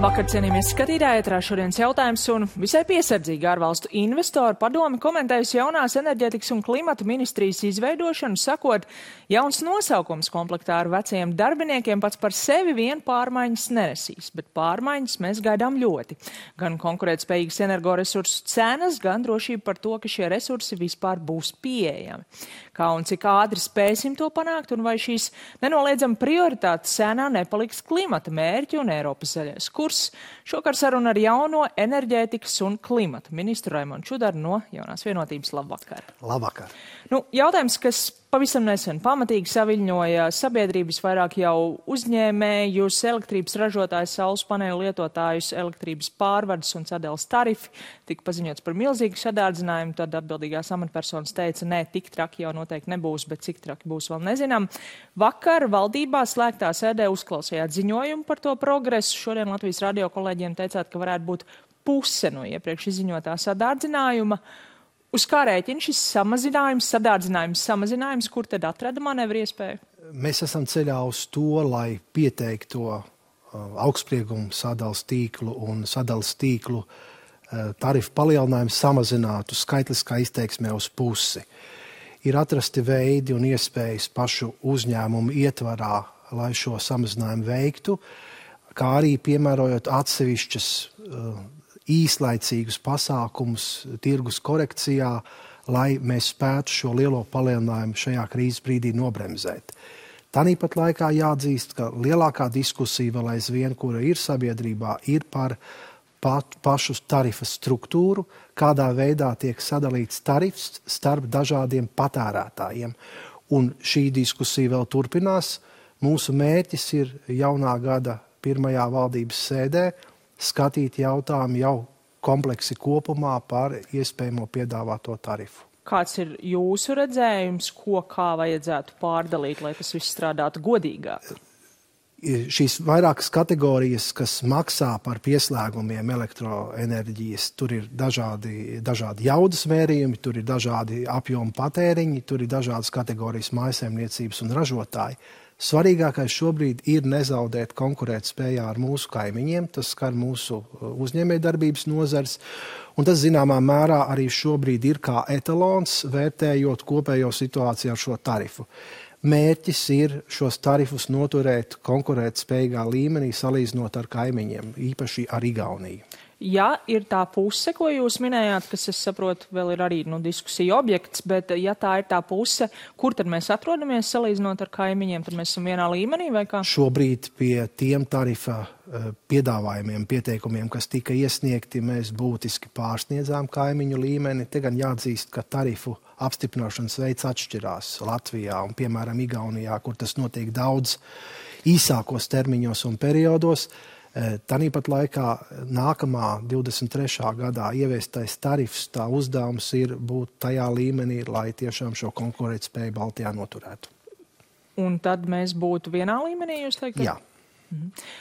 Labvakar, cienījamie skatītāji, ētrā šodienas jautājums un visai piesardzīgi ārvalstu investoru padomi komentējusi jaunās enerģētikas un klimata ministrijas izveidošanu, sakot, jauns nosaukums komplektā ar vecajiem darbiniekiem pats par sevi vien pārmaiņas nenesīs, bet pārmaiņas mēs gaidām ļoti. Gan konkurētspējīgas energoresursu cenas, gan drošība par to, ka šie resursi vispār būs pieejami. Kā un cik ātri spēsim to panākt un vai šīs nenoliedzami prioritātes sēnā nepaliks klimata mērķi un Eiropas zaļais kurs. Šokar saruna ar jauno enerģētikas un klimata ministru Raimondu Čudaru no Jaunās vienotības. Labvakar. Labvakar. Jautājums, kas pavisam nesen pamatīgi saviļņoja sabiedrības, vairāk jau uzņēmējus, elektrības ražotājus, saules paneļu lietotājus, elektrības pārvades un sadales tarifi. Tika paziņots par milzīgu sadārdzinājumu, tad atbildīgās amatpersonas teica, nē, tik traki jau noteikti nebūs, bet cik traki būs vēl nezinām. Vakar valdībā slēgtā sēdē uzklausījāt ziņojumu par to progresu. Šodien Latvijas radio kolēģiem teicāt, ka varētu būt puse no iepriekš izziņotā sadārdzinājuma. Uz kā rēķina šis samazinājums, kur tad atrada manevru iespēju? Mēs esam ceļā uz to, lai pieteikto augstsprieguma sadales tīklu un sadales tīklu tarifu palielinājumu samazinātu skaitliskā izteiksmē uz pusi. Ir atrasti veidi un iespējas pašu uzņēmumu ietvarā, lai šo samazinājumu veiktu, kā arī piemērojot atsevišķas īslaicīgus pasākumus tirgus korekcijā, lai mēs spētu šo lielo palielinājumu šajā krīzes brīdī nobremzēt. Tāpat laikā jāatzīst, ka lielākā diskusija vēl aizvien, kura ir sabiedrībā, ir par pašu tarifa struktūru, kādā veidā tiek sadalīts tarifs starp dažādiem patērētājiem. Un šī diskusija vēl turpinās. Mūsu mērķis ir jaunā gada pirmajā valdības sēdē skatīt jautājumu jau kompleksi kopumā par iespējamo piedāvāto tarifu. Kāds ir jūsu redzējums, kā vajadzētu pārdalīt, lai tas viss strādātu godīgāk? Šīs vairākas kategorijas, kas maksā par pieslēgumiem elektroenerģijas, tur ir dažādi jaudas mērījumi, tur ir dažādi apjomu patēriņi, tur ir dažādas kategorijas mājsaimniecības un ražotāji. Svarīgākais šobrīd ir nezaudēt konkurētspējā ar mūsu kaimiņiem, tas skar mūsu uzņēmējdarbības nozars, un tas zināmā mērā arī šobrīd ir kā etalons, vērtējot kopējo situāciju ar šo tarifu. Mērķis ir šos tarifus noturēt konkurētspējīgā līmenī, salīdzinot ar kaimiņiem, īpaši ar Igauniju. Ja ir tā puse, ko jūs minējāt, kas, es saprotu, vēl ir arī diskusija objekts, bet ja tā ir tā puse, kur tad mēs atrodamies salīdzinot ar kaimiņiem, tad mēs esam vienā līmenī vai kā? Šobrīd pie tiem tarifa piedāvājumiem, pieteikumiem, kas tika iesniegti, mēs būtiski pārsniedzām kaimiņu līmeni. Te gan jāatzīst, ka tarifu apstiprināšanas veids atšķirās Latvijā un, piemēram, Igaunijā, kur tas notiek daudz īsākos termiņos un periodos. Tāpat laikā nākamā 23. gadā ieviestais tarifs, tā uzdevums ir būt tajā līmenī, lai tiešām šo konkurētspēju Baltijā noturētu. Un tad mēs būtu vienā līmenī, jūs teikt? Jā.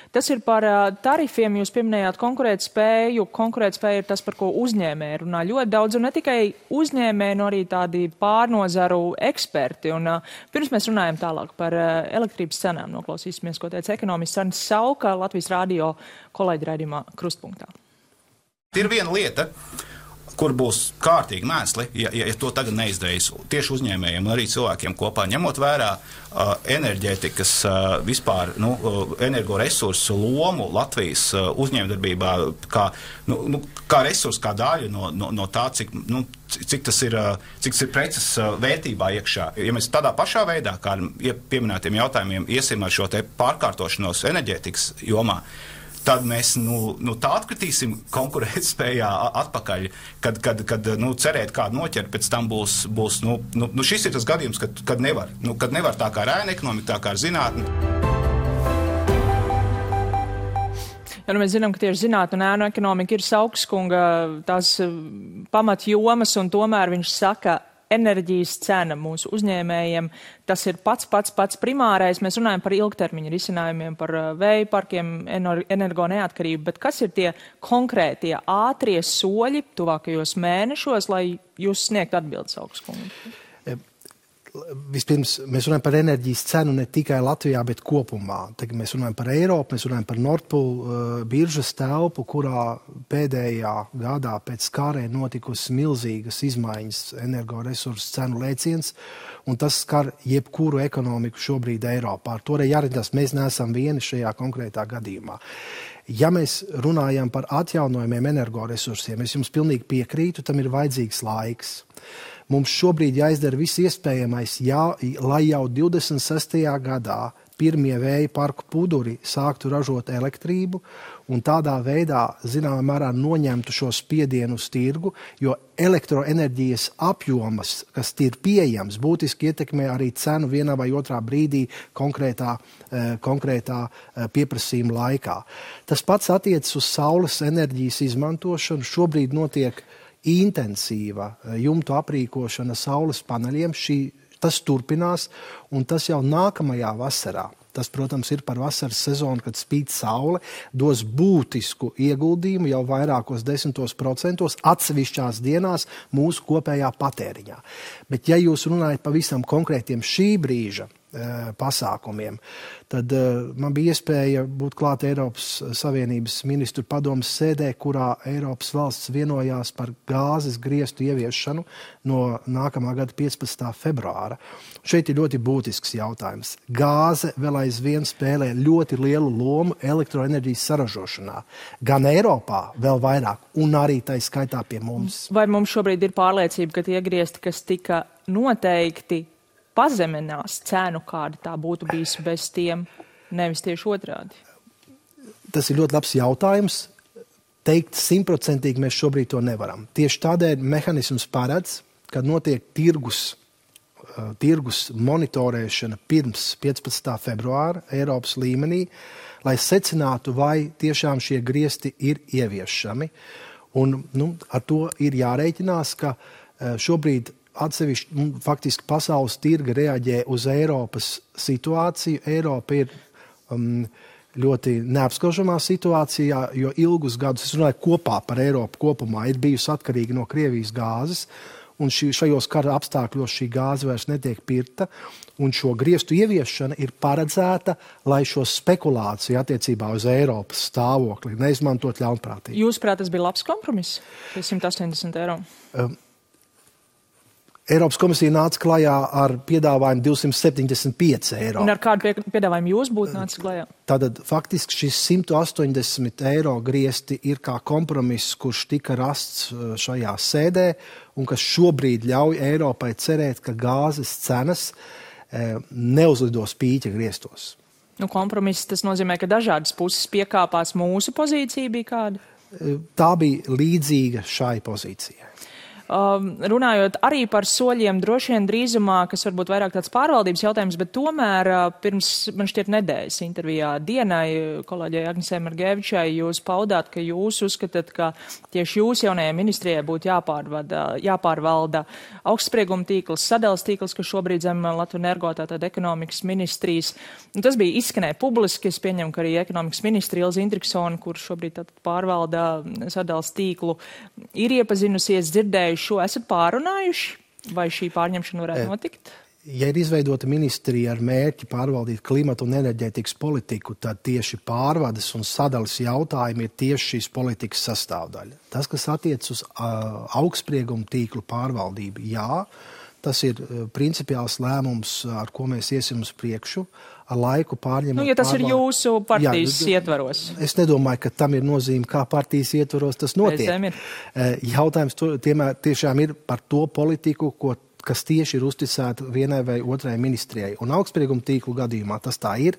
Tas ir par tarifiem, jūs pieminējāt konkurētspēju. Konkurētspēja ir tas, par ko uzņēmēji runā ļoti daudz, un ne tikai uzņēmēji, no arī tādi pārnozaru eksperti. Un pirms mēs runājam tālāk par elektrības cenām, noklausīsimies, ko teica ekonomists Arnis Sauka Latvijas radio kolēģi raidījumā Krustpunktā. Ir viena lieta, kur būs kārtīgi mēsli, ja to tagad neizdarīs tieši uzņēmējiem un arī cilvēkiem kopā, ņemot vērā enerģētikas vispār, energoresursu lomu Latvijas uzņēmdarbībā kā resursu, kā daļu no tā, cik tas ir preces vērtībā iekšā. Ja mēs tādā pašā veidā, kā pieminētiem jautājumiem, iesim ar šo te pārkārtošanos enerģētikas jomā, tad mēs tā atkritīsim konkurētspējā atpakaļ, kad cerēt kādu noķert, pēc tam būs šis ir tas gadījums, kad nevar tā kā ar ēnu ekonomiku, tā kā ar zinātni. Ja, mēs zinām, ka tieši zinātne un ēnu ekonomika ir Saukskunga tās pamatjomas, un tomēr viņš saka, enerģijas cena mūsu uzņēmējiem, tas ir pats primārais. Mēs runājam par ilgtermiņa risinājumiem, par vēja parkiem, energo neatkarību, bet kas ir tie konkrētie ātrie soļi tuvākajos mēnešos, lai jūs sniegt atbildes Saukskungu? Vispirms mēs runājam par enerģijas cenu ne tikai Latvijā, bet kopumā. Tagad mēs runājam par Eiropu, mēs runājam par Nord Pool biržas telpu, kurā pēdējā gadā pēc karē notikusi milzīgas izmaiņas energoresursu cenu lēciens, un tas skar jebkuru ekonomiku šobrīd Eiropā. Ar to arī jāredzās, mēs neesam vieni šajā konkrētā gadījumā. Ja mēs runājam par atjaunojumiem energoresursiem, es jums pilnīgi piekrītu, tam ir vajadzīgs laiks. Mums šobrīd jāizdara viss iespējamais, lai jau 26. gadā pirmie vēja parku puduri sāktu ražot elektrību un tādā veidā, zināmā mērā, noņemtu šo spiedienu uz tirgu, jo elektroenerģijas apjomas, kas ir pieejams, būtiski ietekmē arī cenu vienā vai otrā brīdī konkrētā pieprasījuma laikā. Tas pats attiecas uz saules enerģijas izmantošanu. Šobrīd notiek intensīva jumtu aprīkošana saules paneļiem. Tas turpinās, un tas jau nākamajā vasarā. Tas, protams, ir par vasaras sezonu, kad spīd saule, dos būtisku ieguldījumu jau vairākos 10% atsevišķās dienās mūsu kopējā patēriņā. Bet, ja jūs runājat pavisam konkrētiem šī brīža pasākumiem, tad man bija iespēja būt klāt Eiropas Savienības ministru padomes sēdē, kurā Eiropas valsts vienojās par gāzes griestu ieviešanu no nākamā gada 15. februāra. Šeit ir ļoti būtisks jautājums. Gāze vēl aizvien spēlē ļoti lielu lomu elektroenerģijas saražošanā. Gan Eiropā vēl vairāk, un arī tā skaitā pie mums. Vai mums šobrīd ir pārliecība, ka tie griesti, kas tika noteikti, pazeminās cenu, kāda tā būtu bijis bez tiem, nevis tieši otrādi? Tas ir ļoti labs jautājums. Teikt 100% mēs šobrīd to nevaram. Tieši tādēļ mehanisms paredz, kad notiek tirgus monitorēšana pirms 15. februāra Eiropas līmenī, lai secinātu, vai tiešām šie griesti ir ieviešami. Un ar to ir jārēķinās, ka šobrīd atsevišķi, faktiski pasaules tirga reaģē uz Eiropas situāciju. Eiropa ir ļoti neapskaužamā situācijā, jo ilgus gadus, es runāju kopā par Eiropu kopumā, ir bijusi atkarīga no Krievijas gāzes, un šajos kara apstākļos šī gāze vairs netiek pirkta, un šo griestu ieviešana ir paredzēta, lai šo spekulāciju attiecībā uz Eiropas stāvokli neizmantot ļaunprātīgi. Jūsuprāt, tas bija labs kompromiss, 180 eiro? Eiropas komisija nāca klajā ar piedāvājumu 275 eiro. Un ar kādu piedāvājumu jūs būtu nācis klajā? Tātad faktiski šis 180 eiro griesti ir kā kompromiss, kurš tika rasts šajā sēdē un kas šobrīd ļauj Eiropai cerēt, ka gāzes cenas neuzlidos pīķa griestos. Kompromiss tas nozīmē, ka dažādas puses piekāpās. Mūsu pozīcija bija kāda? Tā bija līdzīga šai pozīcijai. Runājot arī par soļiem, droši vien drīzumā, kas varbūt vairāk tāds pārvaldības jautājums, bet tomēr pirms, man šķiet, nedēļas intervijā Dienai, kolēģei Agnesei Margevičai, jūs paudāt, ka jūs uzskatāt, ka tieši jūs jaunajai ministrijai būtu jāpārvalda augstsprieguma tīkls, sadales tīkls, kas šobrīd zem Latvenergo, tātad ekonomikas ministrijas. Un tas bija izskanēja publiski, es pieņemu, ka arī ekonomikas ministri Ilze Indriksone, kur šobrīd tātad pārvalda sadales tīklu, ir iepazinusies, dzirdējuši šo. Esat pārunājuši, vai šī pārņemšana varētu notikt? Ja ir izveidota ministrija ar mērķi pārvaldīt klimatu un enerģētikas politiku, tad tieši pārvades un sadales jautājumi ir tieši šīs politikas sastāvdaļa. Tas, kas attiec uz augstsprieguma tīklu pārvaldību, jā, tas ir principiāls lēmums, ar ko mēs iesim uz priekšu, ar laiku pārņemot. Ja tas ir jūsu partijas ietvaros. Es nedomāju, ka tam ir nozīme, kā partijas ietvaros tas notiek. Jautājums tiešām ir par to politiku, kas tieši ir uzticēta vienai vai otrai ministrijai. Un augstsprieguma tīklu gadījumā tas tā ir.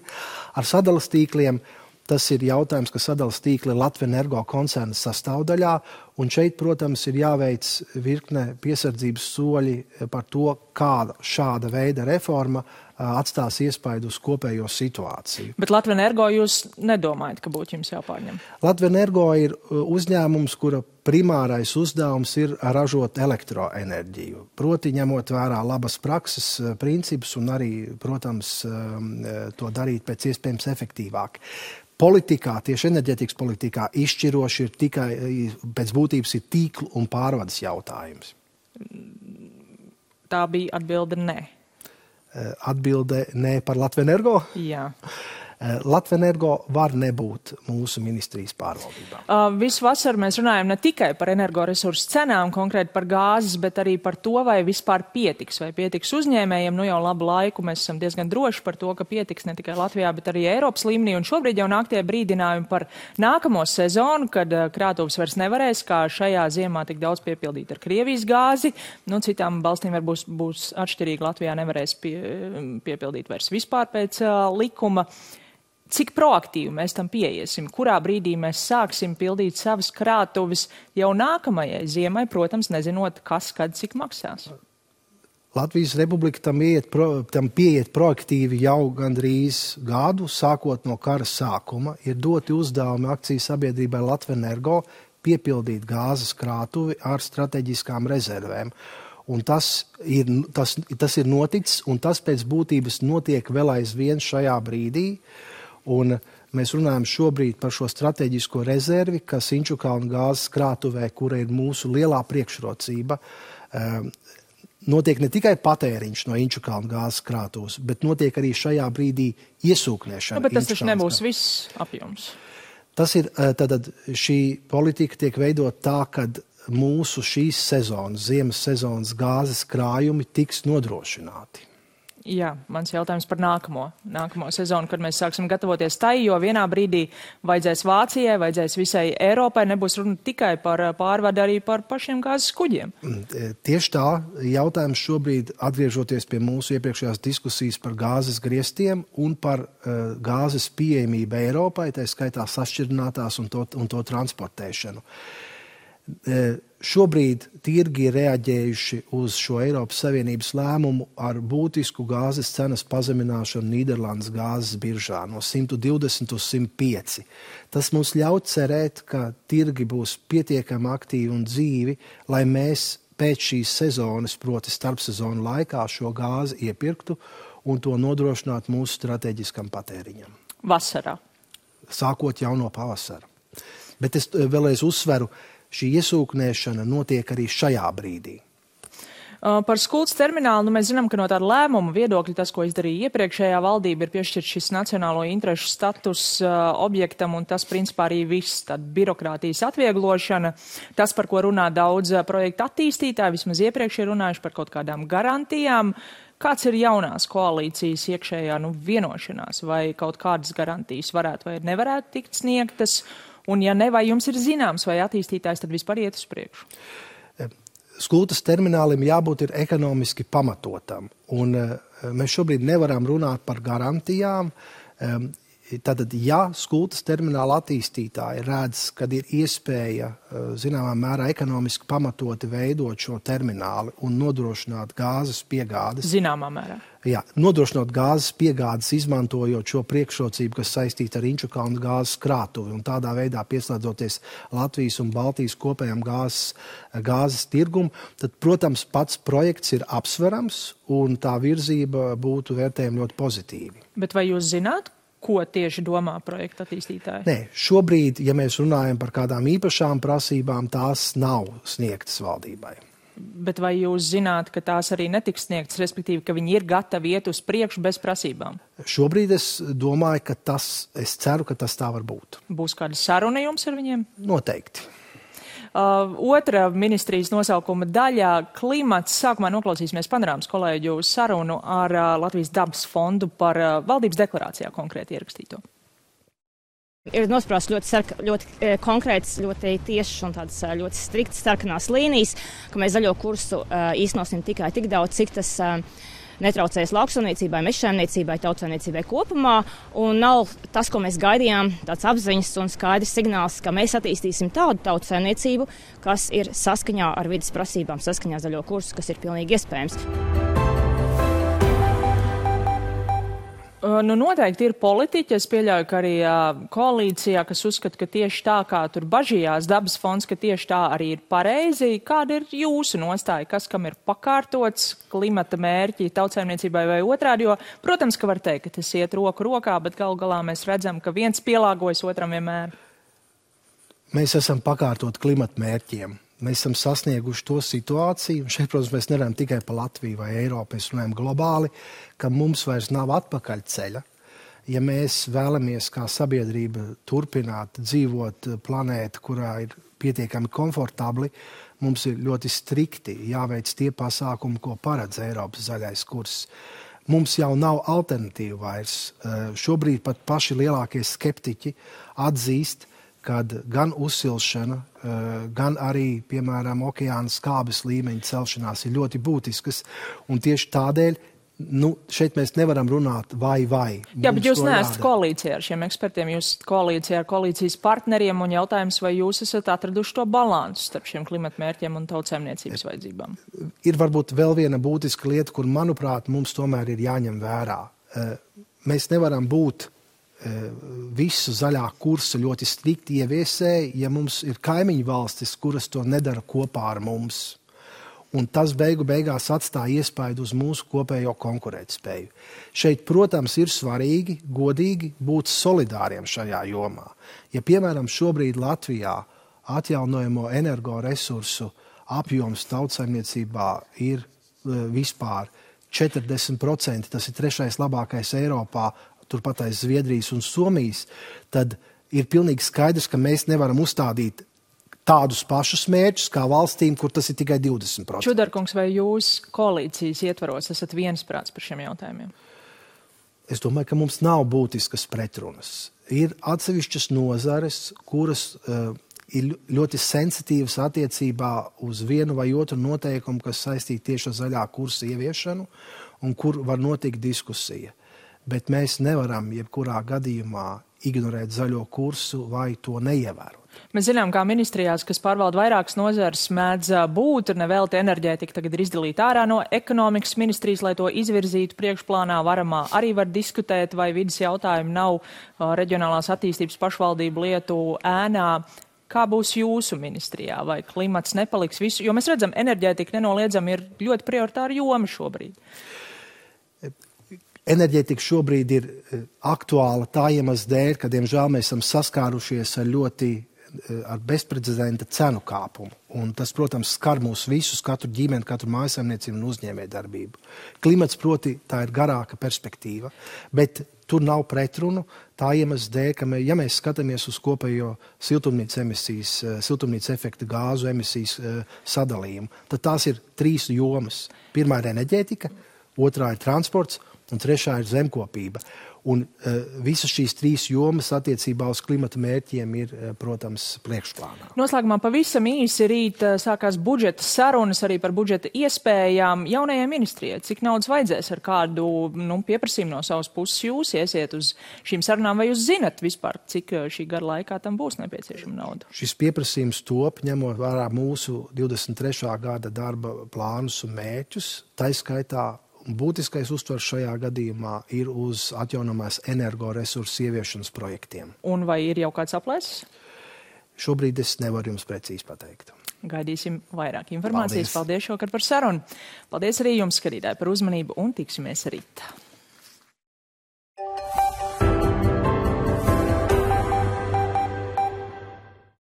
Ar sadales tīkliem tas ir jautājums, ka sadales tīkli ir Latvenergo koncerna sastāvdaļā, un šeit, protams, ir jāveic virkne piesardzības soļi par to, kāda šāda veida reforma atstās iespaidu uz kopējo situāciju. Bet Latvenergo jūs nedomājat, ka būtu jums jāpārņem? Latvenergo ir uzņēmums, kura primārais uzdevums ir ražot elektroenerģiju. Proti, ņemot vērā labas prakses principus un arī, protams, to darīt pēc iespējams efektīvāk. Politikā, tieši enerģētikas politikā, izšķiroši ir tikai, pēc būtības ir tīklu un pārvades jautājums. Tā bija atbilde nē. Atbilde ne par Latvenergo? Jā. Latvenergo var nebūt mūsu ministrijas pārvaldībā. Visu vasaru mēs runājam ne tikai par energoresursu cenām, konkrēti par gāzes, bet arī par to, vai vispār pietiks, vai pietiks uzņēmējiem. Nu jau labu laiku mēs esam diezgan droši par to, ka pietiks ne tikai Latvijā, bet arī Eiropas līmenī. Un šobrīd jau nāk tie brīdinājumi par nākamo sezonu, kad krātuves vairs nevarēs, kā šajā ziemā tik daudz piepildīt ar Krievijas gāzi. Nu, citām valstīm būs atšķirīgi. Latvijā nevarēs piepildīt vairs vispār pēc likuma. Cik proaktīvi mēs tam pieiesim? Kurā brīdī mēs sāksim pildīt savas krātuves jau nākamajai ziemai, protams, nezinot, kas, kad, cik maksās? Latvijas Republika tam pieiet proaktīvi jau gandrīz gadu, sākot no kara sākuma. Ir doti uzdevumi akciju sabiedrībai Latvenergo piepildīt gāzes krātuvi ar strateģiskām rezervēm. Un tas ir noticis, un tas pēc būtības notiek vēl aizvien šajā brīdī. Un mēs runājam šobrīd par šo strateģisko rezervi, kas Inčukalna gāzes krātuvē, kura ir mūsu lielā priekšrocība, notiek ne tikai patēriņš no Inčukalna gāzes krātuves, bet notiek arī šajā brīdī iesūknēšana. Bet tas taču nebūs viss apjoms. Tas ir, tad šī politika tiek veidot tā, kad mūsu šīs sezonas, ziemas sezonas gāzes krājumi tiks nodrošināti. Jā, mans jautājums par nākamo sezonu, kad mēs sāksim gatavoties tai, jo vienā brīdī vajadzēs Vācijai, vajadzēs visai Eiropai, nebūs runa tikai par pārvadu, arī par pašiem gāzes kuģiem. Tieši tā, jautājums šobrīd, atgriežoties pie mūsu iepriekšējās diskusijas par gāzes griestiem un par gāzes pieejamību Eiropai, tā skaitā sašķirinātās un to transportēšanu. Šobrīd tirgi ir reaģējuši uz šo Eiropas Savienības lēmumu ar būtisku gāzes cenas pazemināšanu Nīderlandes gāzes biržā no 120 uz 105. Tas mums ļauj cerēt, ka tirgi būs pietiekami aktīvi un dzīvi, lai mēs pēc šīs sezonas, proti starpsezonu laikā, šo gāzi iepirktu un to nodrošinātu mūsu strateģiskam patēriņam. Vasarā. Sākot jau no pavasara. Bet es vēlreiz uzsveru, šī iesūknēšana notiek arī šajā brīdī. Par Skultas terminālu mēs zinām, ka no tāda lēmuma viedokļa tas, ko izdarīja iepriekšējā valdība, ir piešķirt šis nacionālo interešu status objektam, un tas principā arī viss, tāda birokrātijas atvieglošana. Tas, par ko runā daudz projektu attīstītāji, vismaz iepriekš ir runājuši par kaut kādām garantijām. Kāds ir jaunās koalīcijas iekšējā vienošanās, vai kaut kādas garantijas varētu vai nevarētu tikt sniegtas? Un ja ne, vai jums ir zināms, vai attīstītājs tad vispār iet uz priekšu? Skultas terminālim jābūt ir ekonomiski pamatotam. Un mēs šobrīd nevaram runāt par garantijām. Tātad, ja Skultas termināla attīstītāji redz, kad ir iespēja zināmā mērā ekonomiski pamatoti veidot šo termināli un nodrošināt gāzes piegādes. Zināmā mērā. Jā, nodrošināt gāzes piegādes, izmantojot šo priekšrocību, kas saistīta ar Inčukalna gāzes krātuvi un tādā veidā pieslēdzoties Latvijas un Baltijas kopējām gāzes tirgumu, tad, protams, pats projekts ir apsverams un tā virzība būtu vērtējama ļoti pozitīvi. Bet vai jūs zināt, ko tieši domā projekta attīstītāji? Nē, šobrīd, ja mēs runājam par kādām īpašām prasībām, tās nav sniegtas valdībai. Bet vai jūs zināt, ka tās arī netiks sniegtas, respektīvi, ka viņi ir gatavi iet uz priekšu bez prasībām? Šobrīd es domāju, es ceru, ka tas tā var būt. Būs kāda saruna jums ar viņiem? Noteikti. Otra ministrijas nosaukuma daļā - klimats. Sākumā noklausīsimies panorāmas kolēģu sarunu ar Latvijas dabas fondu par valdības deklarācijā konkrēti ierakstīto. Ir nosprausts ļoti konkrēts, ļoti tiešs un tādas ļoti striktas sarkanās līnijas, ka mēs zaļo kursu īstenosim tikai tik daudz, cik tas netraucēs lauksaimniecībai, mežsaimniecībai, tautsaimniecībai kopumā. Un nav tas, ko mēs gaidījām, tāds apziņas un skaidrs signāls, ka mēs attīstīsim tādu tautsaimniecību, kas ir saskaņā ar vides prasībām, saskaņā zaļo kursu, kas ir pilnīgi iespējams. Nu, noteikti ir politiķi, es pieļauju, ka arī koalīcijā, kas uzskata, ka tieši tā, kā tur bažījās dabas fonds, ka tieši tā arī ir pareizi. Kāda ir jūsu nostāja, kas kam ir pakārtots, klimata mērķi tautsaimniecībai vai otrādi? Jo, protams, ka var teikt, ka tas iet roku rokā, bet galu galā mēs redzam, ka viens pielāgojas otram vienmēr. Mēs esam pakārtot klimata mērķiem. mēs esam sasnieguši to situāciju, un šeit, protams, mēs nerunājam tikai par Latviju vai Eiropu, mēs runājam globāli, ka mums vairs nav atpakaļ ceļa. Ja mēs vēlamies kā sabiedrība turpināt dzīvot planētu, kurā ir pietiekami komfortabli, mums ir ļoti strikti jāveic tie pasākumi, ko paredz Eiropas zaļais kurs. Mums jau nav alternatīva vairs. Šobrīd pat paši lielākie skeptiķi atzīst, kad gan uzsilšana, gan arī, piemēram, okeāna skābes līmeņa celšanās ir ļoti būtiskas. Un tieši tādēļ šeit mēs nevaram runāt vai. Jā, bet jūs neesat koalīcijā ar šiem ekspertiem, jūs esat koalīcijā ar koalīcijas partneriem, un jautājums, vai jūs esat atraduši to balansu starp šiem klimatmērķiem un tautsēmniecības vajadzībām? Ir varbūt vēl viena būtiska lieta, kur, manuprāt, mums tomēr ir jāņem vērā. Mēs nevaram būt visu zaļā kursa ļoti strikti ieviesēji, ja mums ir kaimiņu valstis, kuras to nedara kopā ar mums. Un tas beigās atstāja iespaidu uz mūsu kopējo konkurētspēju. Šeit, protams, ir svarīgi, godīgi būt solidāriem šajā jomā. Ja, piemēram, šobrīd Latvijā atjaunojamo energoresursu apjoms tautsaimniecībā ir vispār 40%, tas ir 3. labākais Eiropā, turpat aiz Zviedrijas un Somijas, tad ir pilnīgi skaidrs, ka mēs nevaram uzstādīt tādus pašus mērķus kā valstīm, kur tas ir tikai 20%. Čudarkungs, vai jūs koalīcijas ietvaros esat viensprāts par šiem jautājumiem? Es domāju, ka mums nav būtiskas pretrunas. Ir atsevišķas nozares, kuras ir ļoti sensitīvas attiecībā uz vienu vai otru noteikumu, kas saistīti tieši ar zaļā kursa ieviešanu un kur var notikt diskusija. Bet mēs nevaram jebkurā gadījumā ignorēt zaļo kursu vai to neievērot. Mēs zinām, kā ministrijās, kas pārvalda vairākas nozares, mēdz būt, nevelti enerģētika tagad ir izdalīta ārā no ekonomikas ministrijas, lai to izvirzītu priekšplānā varamā. Arī var diskutēt, vai vidas jautājumi nav reģionālās attīstības pašvaldību lietu ēnā. Kā būs jūsu ministrijā? Vai klimats nepaliks visu? Jo mēs redzam, enerģētika nenoliedzami ir ļoti prioritāra joma šobrīd. Enerģētika šobrīd ir aktuāla tā iemesla dēļ, ka, diemžēl, mēs esam saskārušies ar bezprecedenta cenu kāpumu. Un tas, protams, skar mūs visus, katru ģimeni, katru mājasaimniecību un uzņēmējdarbību. Klimats, proti, tā ir garāka perspektīva, bet tur nav pretrunu tā iemesla dēļ, ka, ja mēs skatāmies uz kopējo siltumnīca efekta gāzu emisijas sadalījumu, tad tās ir 3 jomas. Pirmā ir enerģētika, otrā ir transports, un 3. ir zemkopība. Un visas šīs 3 jomas attiecībā uz klimata mērķiem ir, protams, priekšplānā. Noslēgumā pavisam īsi rīt sākās budžeta sarunas arī par budžeta iespējām jaunajai ministrijai. Cik naudas vajadzēs, ar kādu pieprasījumu no savas puses jūs iesiet uz šīm sarunām, vai jūs zinat vispār, cik šī gada laikā tam būs nepieciešama nauda? Šis pieprasījums top, ņemot vērā mūsu 23. gada darba plānus un mērķus, taiskaitā būtiskais uztvers šajā gadījumā ir uz atjaunamās energoresursu ieviešanas projektiem. Un vai ir jau kāds aplēses? Šobrīd es nevaru jums precīzi pateikt. Gaidīsim vairāk informācijas. Paldies šovakar par sarunu. Paldies arī jums, skatītāji, par uzmanību un tiksimies rīt.